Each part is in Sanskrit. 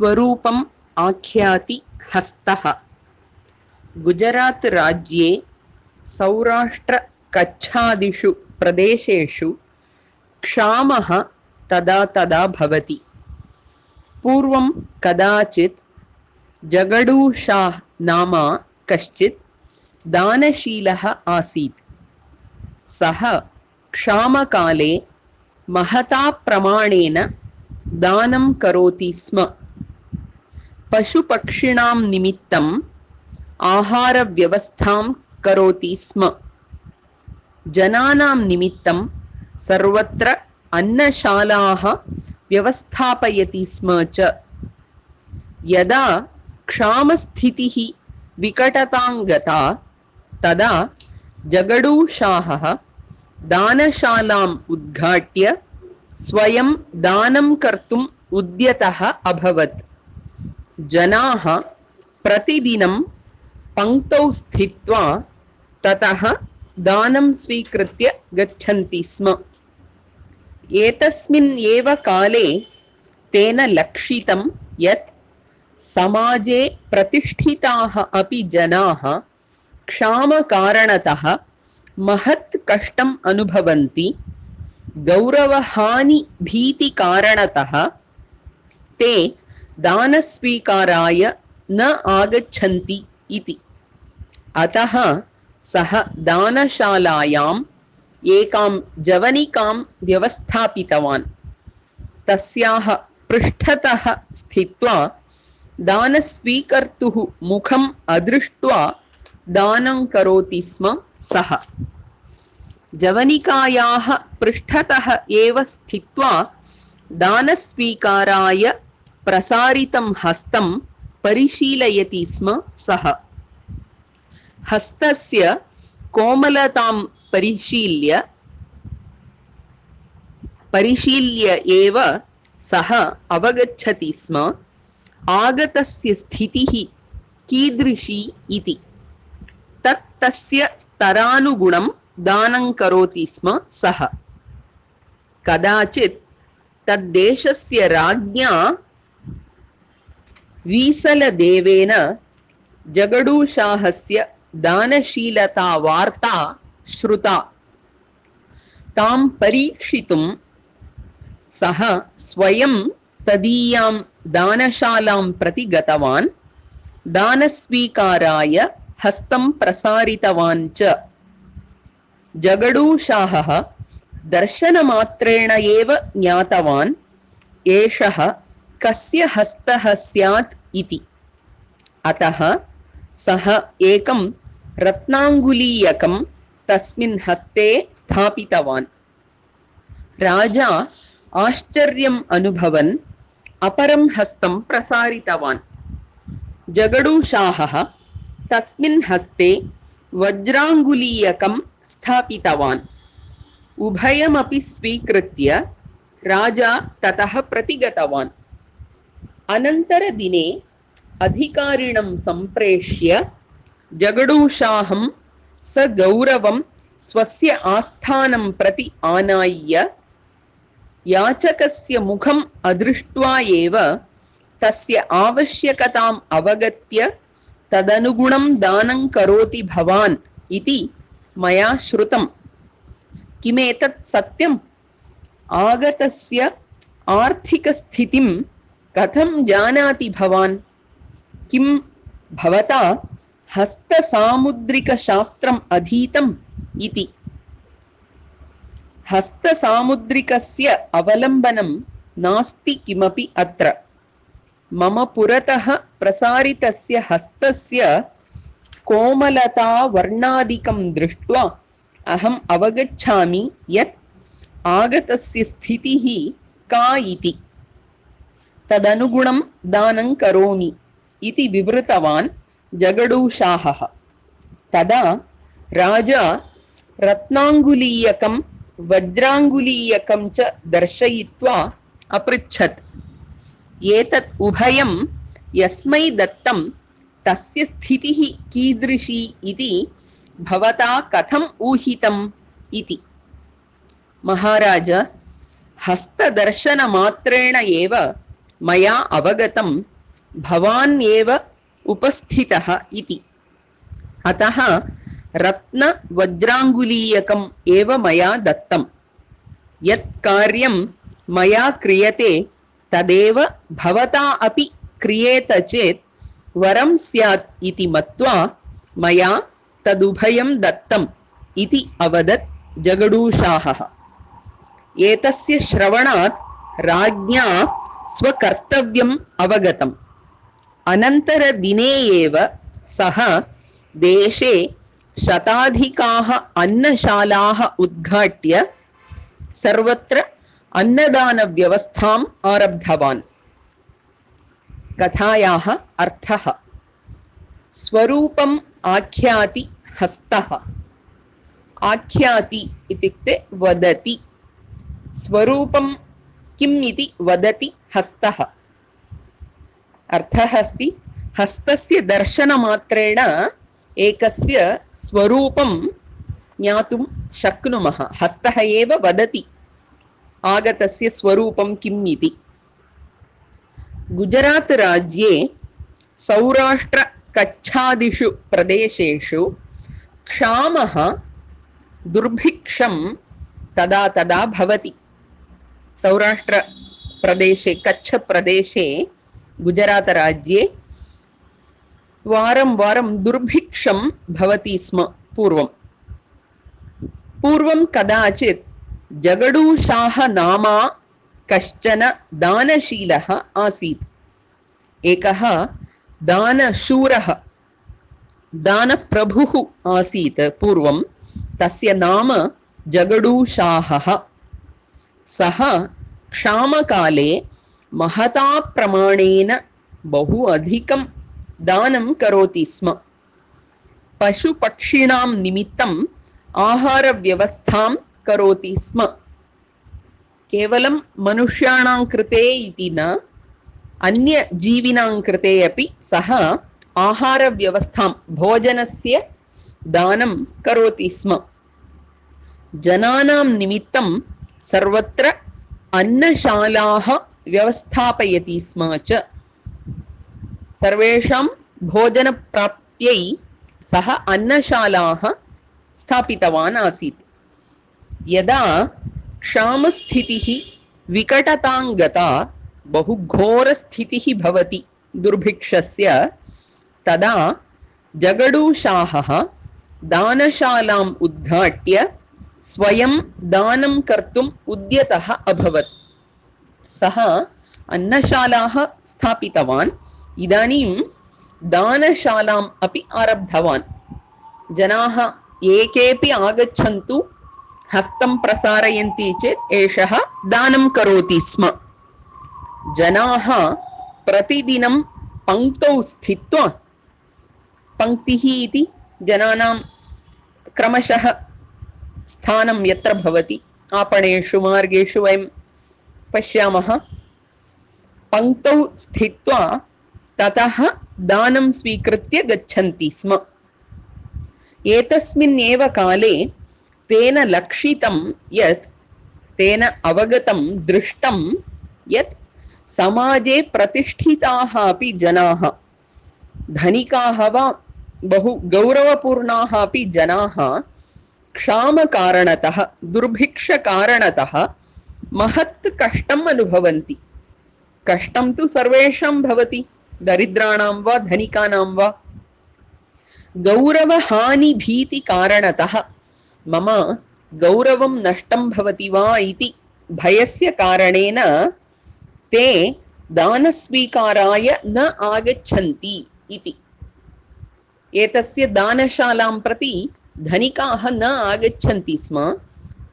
स्वरूपम् आख्याति हस्तः। गुजरात राज्ये सौराष्ट्र कच्छादिषु प्रदेशेषु क्षामः तदा तदा भवति। पूर्वं कदाचित् जगडू शाह नाम कश्चित् दानशीलः आसीत्। सः क्षामकाले महता प्रमाणेन दानं करोति स्म। पशुपक्षिणां निमित्तम् आहारव्यवस्थां करोति स्म। जनानां निमित्तं सर्वत्र अन्नशालाः व्यवस्थापयति स्म च। यदा क्षामस्थितिः विकटतां गता तदा जगडू शाहः दानशालाम् उद्घाट्य स्वयं दानं कर्तुम् उद्यतः अभवत्। जनाः प्रतिदिनं पङ्क्तौ स्थित्वा ततः दानं स्वीकृत्य गच्छन्ति स्म। एतस्मिन् एव काले तेन लक्षितं यत् समाजे प्रतिष्ठिताः अपि जनाः क्षामकारणतः महत् कष्टम् अनुभवन्ति। गौरवहानि भीतिकारणतः ते दानस्वीकाराय न आगच्छन्ति इति। अतः सः दानशालायाम् एकां जवनिकां व्यवस्थापितवान्। तस्याः पृष्ठतः स्थित्वा दानस्वीकर्तुः मुखम् अदृष्ट्वा दानं करोति स्म सः। जवनिकायाः पृष्ठतः एव स्थित्वा दानस्वीकाराय प्रसारितं हस्तं परिशीलयति स्म सः। हस्तस्य कोमलतां परिशील्य एव सः अवगच्छति स्म आगतस्य स्थितिः कीदृशी इति। तस्य स्तरानुगुणं दानं करोति स्म सः। कदाचित् तद्देशस्य राज्ञा वीसलदेवेन जगडूशाहस्य दानशीलता वार्ता श्रुता। तां परीक्षितुं सः स्वयं तदीयां दानशालां प्रति गतवान्। दानस्वीकाराय हस्तं प्रसारितवान् च। जगडूशाहः दर्शनमात्रेण एव ज्ञातवान् एषः कस्य हस्तः स्यात् इति। अतः सः एकं रत्नाङ्गुलीयकं तस्मिन् हस्ते स्थापितवान्। राजा आश्चर्यम् अनुभवन् अपरं हस्तं प्रसारितवान्। जगडूशाहः तस्मिन् हस्ते वज्राङ्गुलीयकं स्थापितवान्। उभयमपि स्वीकृत्य राजा ततः प्रतिगतवान्। अनन्तरदिने अधिकारिणं सम्प्रेष्य जगडूशाहं सगौरवं स्वस्य आस्थानं प्रति आनाय्य याचकस्य मुखम् अदृष्ट्वा एव तस्य आवश्यकताम् अवगत्य तदनुगुणं दानं करोति भवान् इति मया श्रुतम्। किमेतत् सत्यम्? आगतस्य आर्थिकस्थितिं कथं जानाति भवान्? किं भवता हस्तसामुद्रिकशास्त्रम् अधीतम् इति। हस्तसामुद्रिकस्य अवलम्बनं नास्ति किमपि अत्र। मम पुरतः प्रसारितस्य हस्तस्य कोमलता वर्णादिकं दृष्ट्वा अहम् अवगच्छामि यत् आगतस्य स्थितिः का इति। तदनुगुणं दानं करोमि इति विवृतवान् जगडूशाहः। तदा राजा रत्नाङ्गुलीयकं वज्राङ्गुलीयकं च दर्शयित्वा अपृच्छत्, एतत् उभयं यस्मै दत्तं तस्य स्थितिः कीदृशी इति भवता कथम् ऊहितम् इति। महाराज, हस्तदर्शनमात्रेण एव मया अवगतं भवान् एव उपस्थितः इति। अतः रत्नवज्राङ्गुलीयकम् एव मया दत्तम्। यत् कार्यं मया क्रियते तदेव भवता अपि क्रियेत चेत् वरं स्यात् इति मत्वा मया तदुभयं दत्तम् इति अवदत् जगडूशाहः। एतस्य श्रवणात् राज्ञा स्वकर्तव्यम् अवगतम्। अनन्तरदिने एव सः देशे शताधिकाः अन्नशालाः उद्घाट्य सर्वत्र अन्नदानव्यवस्थाम् आरब्धवान्। कथायाः अर्थः। स्वरूपम् आख्याति हस्तः। आख्याति इत्युक्ते वदति। स्वरूपं किम् इति वदति हस्तः। अर्थः अस्ति हस्तस्य दर्शनमात्रेण एकस्य स्वरूपं ज्ञातुं शक्नुमः। हस्तः एव वदति आगतस्य स्वरूपं किम् इति। गुजरात् राज्ये सौराष्ट्र कच्छादिषु प्रदेशेषु क्षामः दुर्भिक्षं तदा तदा भवति। सौराष्ट्र प्रदेशे कच्छ प्रदेशे गुजरात राज्ये वारं वारं दुर्भिक्षं भवति स्म। पूर्वं कदाचित् जगडूशाह नामा कश्चन दानशीलः आसीत्। एकः दानशूरः दानप्रभुः आसीत् पूर्वं। तस्य नाम जगडूशाहः। सः क्षामकाले महता प्रमाणेन बहु अधिकं दानं करोति स्म। पशुपक्षिणां निमित्तम् आहारव्यवस्थां करोति स्म। केवलं मनुष्याणां कृते इति न, अन्यजीविनां कृते अपि सः आहारव्यवस्थां भोजनस्य दानं करोति स्म। जनानां निमित्तं सर्वत्र अन्नशालाः व्यवस्थापयति स्म च। सर्वेषां भोजनप्राप्त्यै सः अन्नशालाः स्थापितवान् आसीत्। यदा क्षामस्थितिः विकटतां गता, बहु घोरस्थितिः भवति दुर्भिक्षस्य, तदा जगडूशाहः दानशालाम् उद्घाट्य स्वयं दानं कर्तुम् उद्यतः अभवत्। सः अन्नशालाः स्थापितवान्। इदानीं दानशालाम् अपि आरब्धवान्। जनाः एकेपि आगच्छन्तु, हस्तं प्रसारयन्ति चेत् एषः दानं करोति स्म। जनाः प्रतिदिनं पङ्क्तौ स्थित्वा, पङ्क्तिः इति जनानां क्रमशः स्थानं यत्र भवति, आपणेषु मार्गेषु वयं पश्यामः, पङ्क्तौ स्थित्वा ततः दानं स्वीकृत्य गच्छन्ति स्म। एतस्मिन् एव काले तेन लक्षितं यत्, तेन अवगतं दृष्टं यत् समाजे प्रतिष्ठिताः अपि जनाः, धनिकाः वा बहु गौरवपूर्णाः अपि जनाः क्षामकारणतः, दुर्भिक्षकारणतः महत् कष्टम् अनुभवन्ति। कष्टं तु सर्वेषां भवति, दरिद्राणां वा धनिकानां वा। गौरवहानिभीतिकारणतः मम गौरवं नष्टं भवति वा इति भयस्य कारणेन ते दानस्वीकाराय न आगच्छन्ति इति। एतस्य दानशालां प्रति धनिकाः न आगच्छन्ति स्म,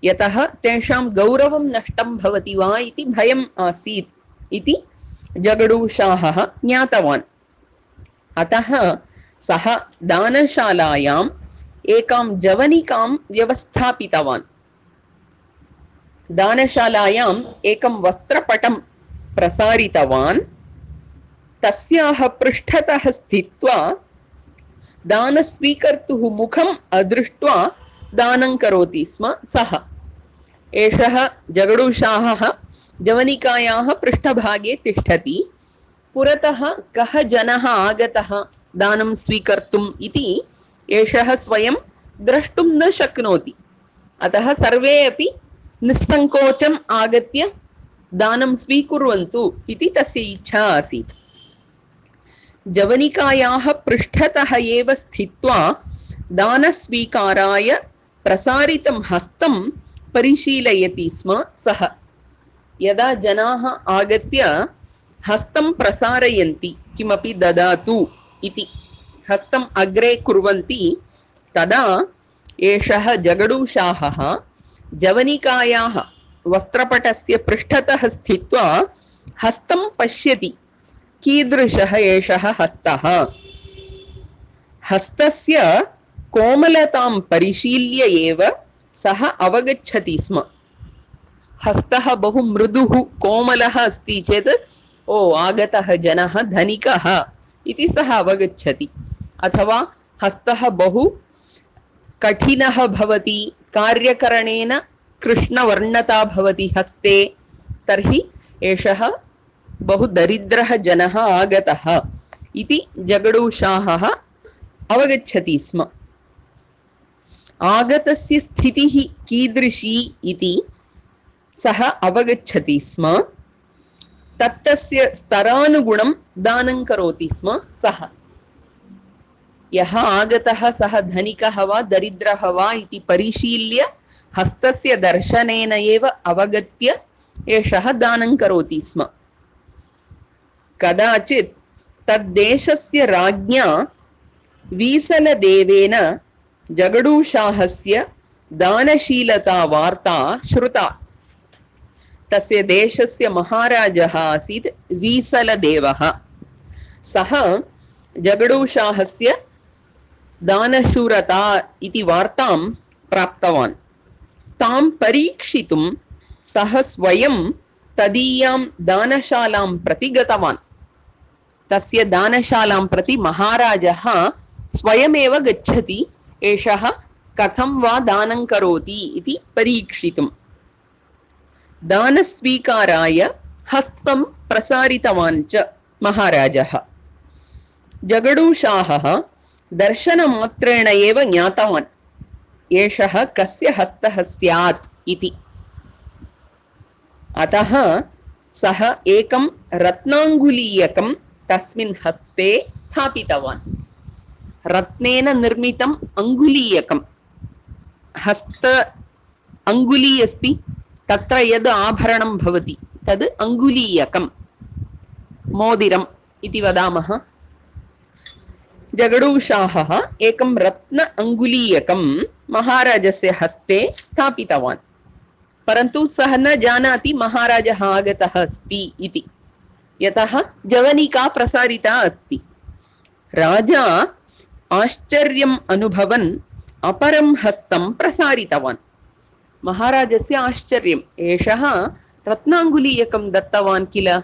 यतः तेषां गौरवं नष्टं भवति वा इति भयम् आसीत् इति जगडूशाहः ज्ञातवान्। अतः सः दानशालायाम् एकां जवनिकां व्यवस्थापितवान्। दानशालायाम् एकं वस्त्रपटं प्रसारितवान्। तस्याः पृष्ठतः स्थित्वा दानस्वीकर्तुः मुखम् अदृष्ट्वा दानं करोति स्म सः। एषः जगडूशाहः जवनिकायाः पृष्ठभागे तिष्ठति। पुरतः कः जनः आगतः दानं स्वीकर्तुम् इति एषः स्वयं द्रष्टुं न शक्नोति। अतः सर्वे अपि निस्सङ्कोचम् आगत्य दानं स्वीकुर्वन्तु इति तस्य इच्छा आसीत्। जवनिकायाः पृष्ठतः एव स्थित्वा दानस्वीकाराय प्रसारितं हस्तं परिशीलयति स्म सः। यदा जनाः आगत्य हस्तं प्रसारयन्ति, किमपि ददातु इति हस्तम् अग्रे कुर्वन्ति, तदा एषः जगडूशाहः जवनिकायाः वस्त्रपटस्य पृष्ठतः स्थित्वा हस्तं पश्यति। कीदृशः एषः हस्तः? हस्तस्य कोमलतां परिशील्य एव सः अवगच्छति स्म। हस्तः बहु मृदुः कोमलः अस्ति चेत् ओ आगतः जनः धनिकः इति सः अवगच्छति। अथवा हस्तः बहु कठिनः भवति, कार्यकरणेन कृष्णवर्णता भवति हस्ते, तर्हि एषः बहु दरिद्रः जनः आगतः इति जगडूशाहः अवगच्छति स्म। आगतस्य स्थितिः कीदृशी इति सः अवगच्छति स्म। तत्तस्य स्तरानुगुणं दानं करोति स्म सः। यः आगतः सः धनिकः वा दरिद्रः वा इति परिशील्य हस्तस्य दर्शनेन एव अवगत्य एषः दानं करोति स्म। कदाचित् तद्देशस्य राज्ञा वीसलदेवेन जगडूशाहस्य दानशीलता वार्ता श्रुता। तस्य देशस्य महाराजः आसीत् वीसलदेवः। सः जगडूशाहस्य दानशूरता इति वार्तां प्राप्तवान्। तां परीक्षितुं सः स्वयं तदीयां दानशालां प्रति गतवान्। तस्य दानशालां प्रति महाराजः स्वयमेव गच्छति, एषः कथं वा दानं करोति इति परीक्षितुम्। दानस्वीकाराय हस्तं प्रसारितवान् च महाराजः। जगडूशाहः दर्शनमात्रेण एव ज्ञातवान् एषः कस्य हस्तः स्यात् इति। अतः सः एकं रत्नाङ्गुलीयकं तस्मिन् हस्ते स्थापितवान्। रत्नेन निर्मितम् अङ्गुलीयकं, हस्त अङ्गुली अस्ति, तत्र यद् आभरणं भवति तद् अङ्गुलीयकं, मोदिरम् इति वदामः। जगडूशाहः एकं रत्न अङ्गुलीयकं महाराजस्य हस्ते स्थापितवान्। परन्तु सः न जानाति महाराजः आगतः अस्ति इति, यतः जवनिका प्रसारिता अस्ति। राजा आश्चर्यम् अनुभवन् अपरं हस्तं प्रसारितवान्। महाराजस्य आश्चर्यम्, एषः रत्नाङ्गुलीयकं दत्तवान् किल,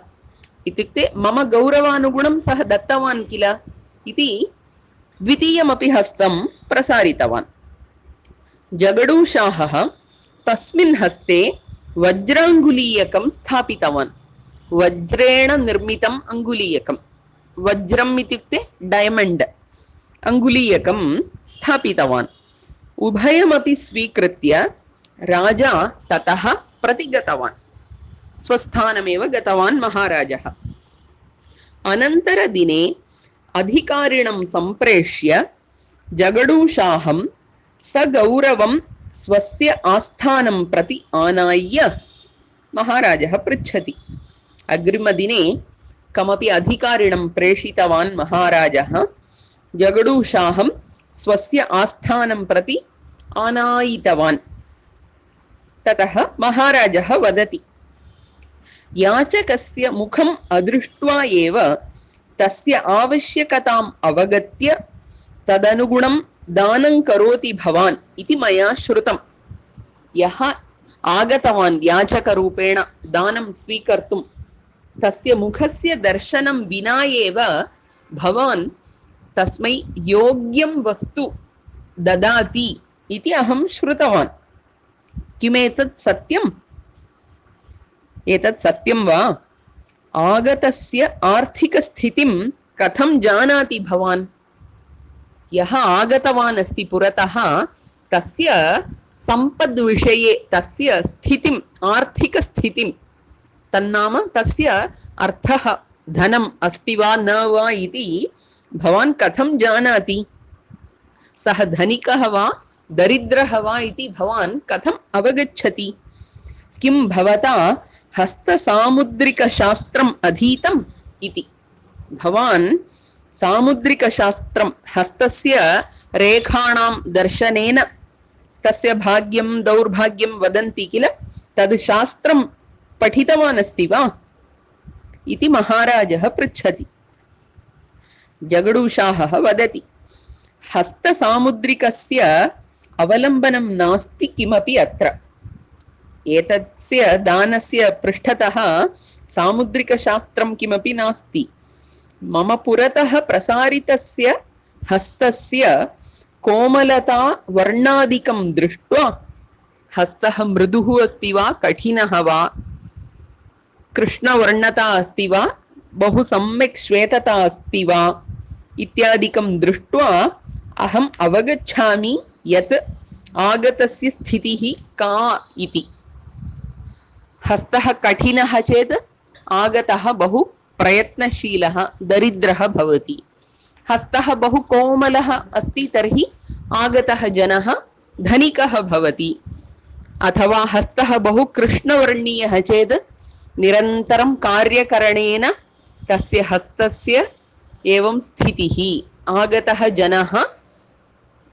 इत्युक्ते मम गौरवानुगुणं सः दत्तवान् किल इति द्वितीयमपि हस्तं प्रसारितवान्। जगडूशाहः तस्मिन् हस्ते वज्राङ्गुलीयकं स्थापितवान्। वज्रेण निर्मितम् अङ्गुलीयकं, वज्रम् इत्युक्ते डैमण्ड्, अङ्गुलीयकं स्थापितवान्। उभयमपि स्वीकृत्य राजा ततः प्रतिगतवान्। स्वस्थानमेव गतवान् महाराजः। अनन्तरदिने अधिकारिणं सम्प्रेष्य जगडूशाहं सगौरवं स्वस्य आस्थानं प्रति आनाय्य महाराजः पृच्छति। अग्रिमदिने कमपि अधिकारिणं प्रेषितवान् महाराजः। जगडूशाहं स्वस्य आस्थानं प्रति आनायितवान्। ततः महाराजः वदति, याचकस्य मुखम् अदृष्ट्वा एव तस्य आवश्यकताम् अवगत्य तदनुगुणं दानं करोति भवान् इति मया श्रुतम्। यः आगतवान् याचकरूपेण दानं स्वीकर्तुं, तस्य मुखस्य दर्शनं विना एव भवान् तस्मै योग्यं वस्तु ददाति इति अहं श्रुतवान्। किमेतत् सत्यम्? एतत् सत्यं वा? आगतस्य आर्थिकस्थितिं कथं जानाति भवान्? यः आगतवान् अस्ति पुरतः तस्य सम्पद्विषये तस्य स्थितिम् आर्थिकस्थितिं तन्नाम तस्य अर्थः धनम् अस्ति वा न वा इति भवान् कथं जानाति? सः धनिकः वा दरिद्रः वा इति भवान् कथम् अवगच्छति? किं भवता हस्तसामुद्रिकशास्त्रम् अधीतम् इति? भवान् सामुद्रिकशास्त्रं हस्तस्य रेखाणां दर्शनेन तस्य भाग्यं दौर्भाग्यं वदन्ति किल, तद् शास्त्रं पठितवान् अस्ति वा इति महाराजः पृच्छति। जगडूशाहः वदति, हस्तसामुद्रिकस्य अवलम्बनं नास्ति किमपि अत्र। एतस्य दानस्य पृष्ठतः सामुद्रिकशास्त्रं किमपि नास्ति। मम पुरतः प्रसारितस्य हस्तस्य कोमलता वर्णादिकं दृष्ट्वा हस्तः मृदुः अस्ति वा कठिनः वा, कृष्णवर्णता अस्ति वा बहु सम्यक् श्वेतता अस्ति वा इत्यादिकं दृष्ट्वा अहम् अवगच्छामि यत् आगतस्य स्थितिः का इति। हस्तः कठिनः चेत् आगतः बहु प्रयत्नशीलः दरिद्रः भवति। हस्तः बहु कोमलः अस्ति तर्हि आगतः जनः धनिकः भवति। अथवा हस्तः बहु कृष्णवर्णीयः चेत् निरन्तरं कार्यकरणेन तस्य हस्तस्य एवं स्थितिः, आगतः जनः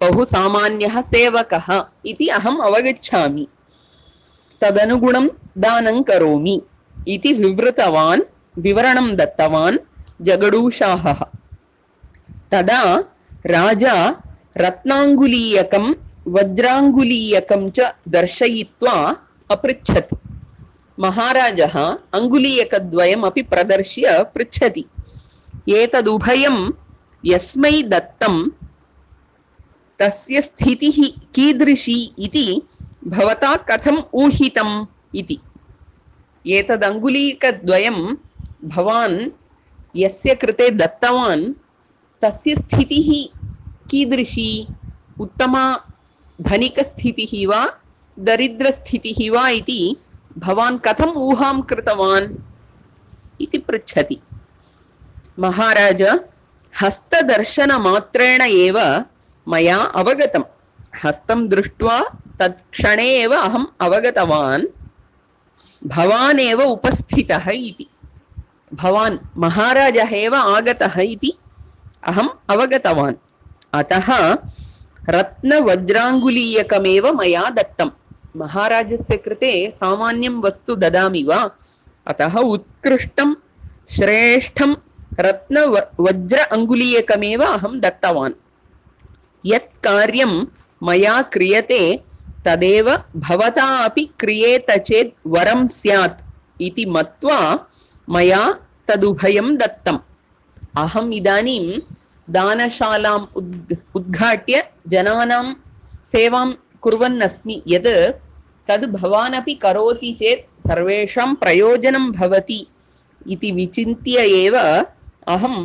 बहु सामान्यः सेवकः इति अहम् अवगच्छामि, तदनुगुणं दानं करोमि इति विवरणं दत्तवान् जगडूशाहः। तदा राजा रत्नाङ्गुलीयकं वज्राङ्गुलीयकं च दर्शयित्वा अपृच्छत्। महाराजः अङ्गुलीयकद्वयमपि प्रदर्श्य पृच्छति, एतदुभयं यस्मै दत्तं तस्य स्थितिः कीदृशी इति भवता कथम् ऊहितम् इति। एतदङ्गुलीयकद्वयं भवान् यस्य कृते दत्तवान् तस्य स्थितिः कीदृशी, उत्तमा धनिकस्थितिः वा दरिद्रस्थितिः वा इति भवान् कथम् ऊहां कृतवान् इति पृच्छति। महाराज, हस्तदर्शनमात्रेण एव मया अवगतं। हस्तं दृष्ट्वा तत्क्षणे एव अहम् अवगतवान् भवान् एव उपस्थितः इति। भवान् महाराजः एव आगतः इति अहम् अवगतवान्। अतः रत्नवज्राङ्गुलीयकमेव मया दत्तम्। महाराजस्य कृते सामान्यं वस्तु ददामि वा? अतः उत्कृष्टं श्रेष्ठं रत्नवज्र अङ्गुलीयकमेव अहं दत्तवान्। यत् कार्यं मया क्रियते तदेव भवता अपि क्रियेत चेत् वरं स्यात् इति मत्वा मया तदुभयं दत्तम्। अहम् इदानीं दानशालाम् उद्घाट्य जनानां सेवां कुर्वन् अस्मि। यद् तद् भवान् अपि करोति चेत् सर्वेषां प्रयोजनं भवति इति विचिन्त्य एव अहं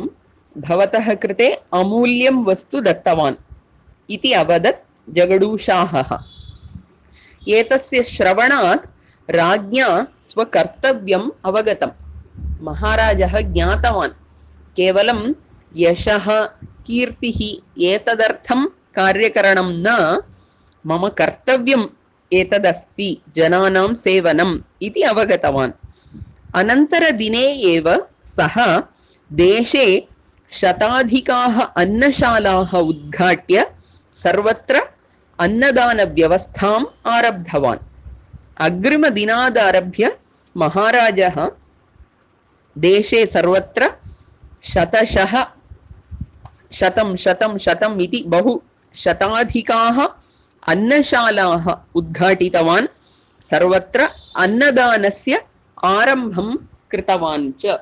भवतः कृते अमूल्यं वस्तु दत्तवान् इति अवदत् जगडूशाहः। एतस्य श्रवणात् राज्ञा स्वकर्तव्यम् अवगतम्। महाराजः ज्ञातवान् केवलं यशः कीर्तिः एतदर्थं कार्यकरणं न, मम कर्तव्यम् एतदस्ति जनानां सेवनम् इति अवगतवान्। अनन्तरदिने एव सः देशे शताधिकाः अन्नशालाः उद्घाट्य सर्वत्र अन्नदानव्यवस्थाम् आरब्धवान्। अग्रिमदिनादारभ्य महाराजः देशे सर्वत्र शतं इति बहु शताधिकाः अन्नशालाः उद्घाटितवान्, सर्वत्र अन्नदानस्य आरम्भं कृतवान् च।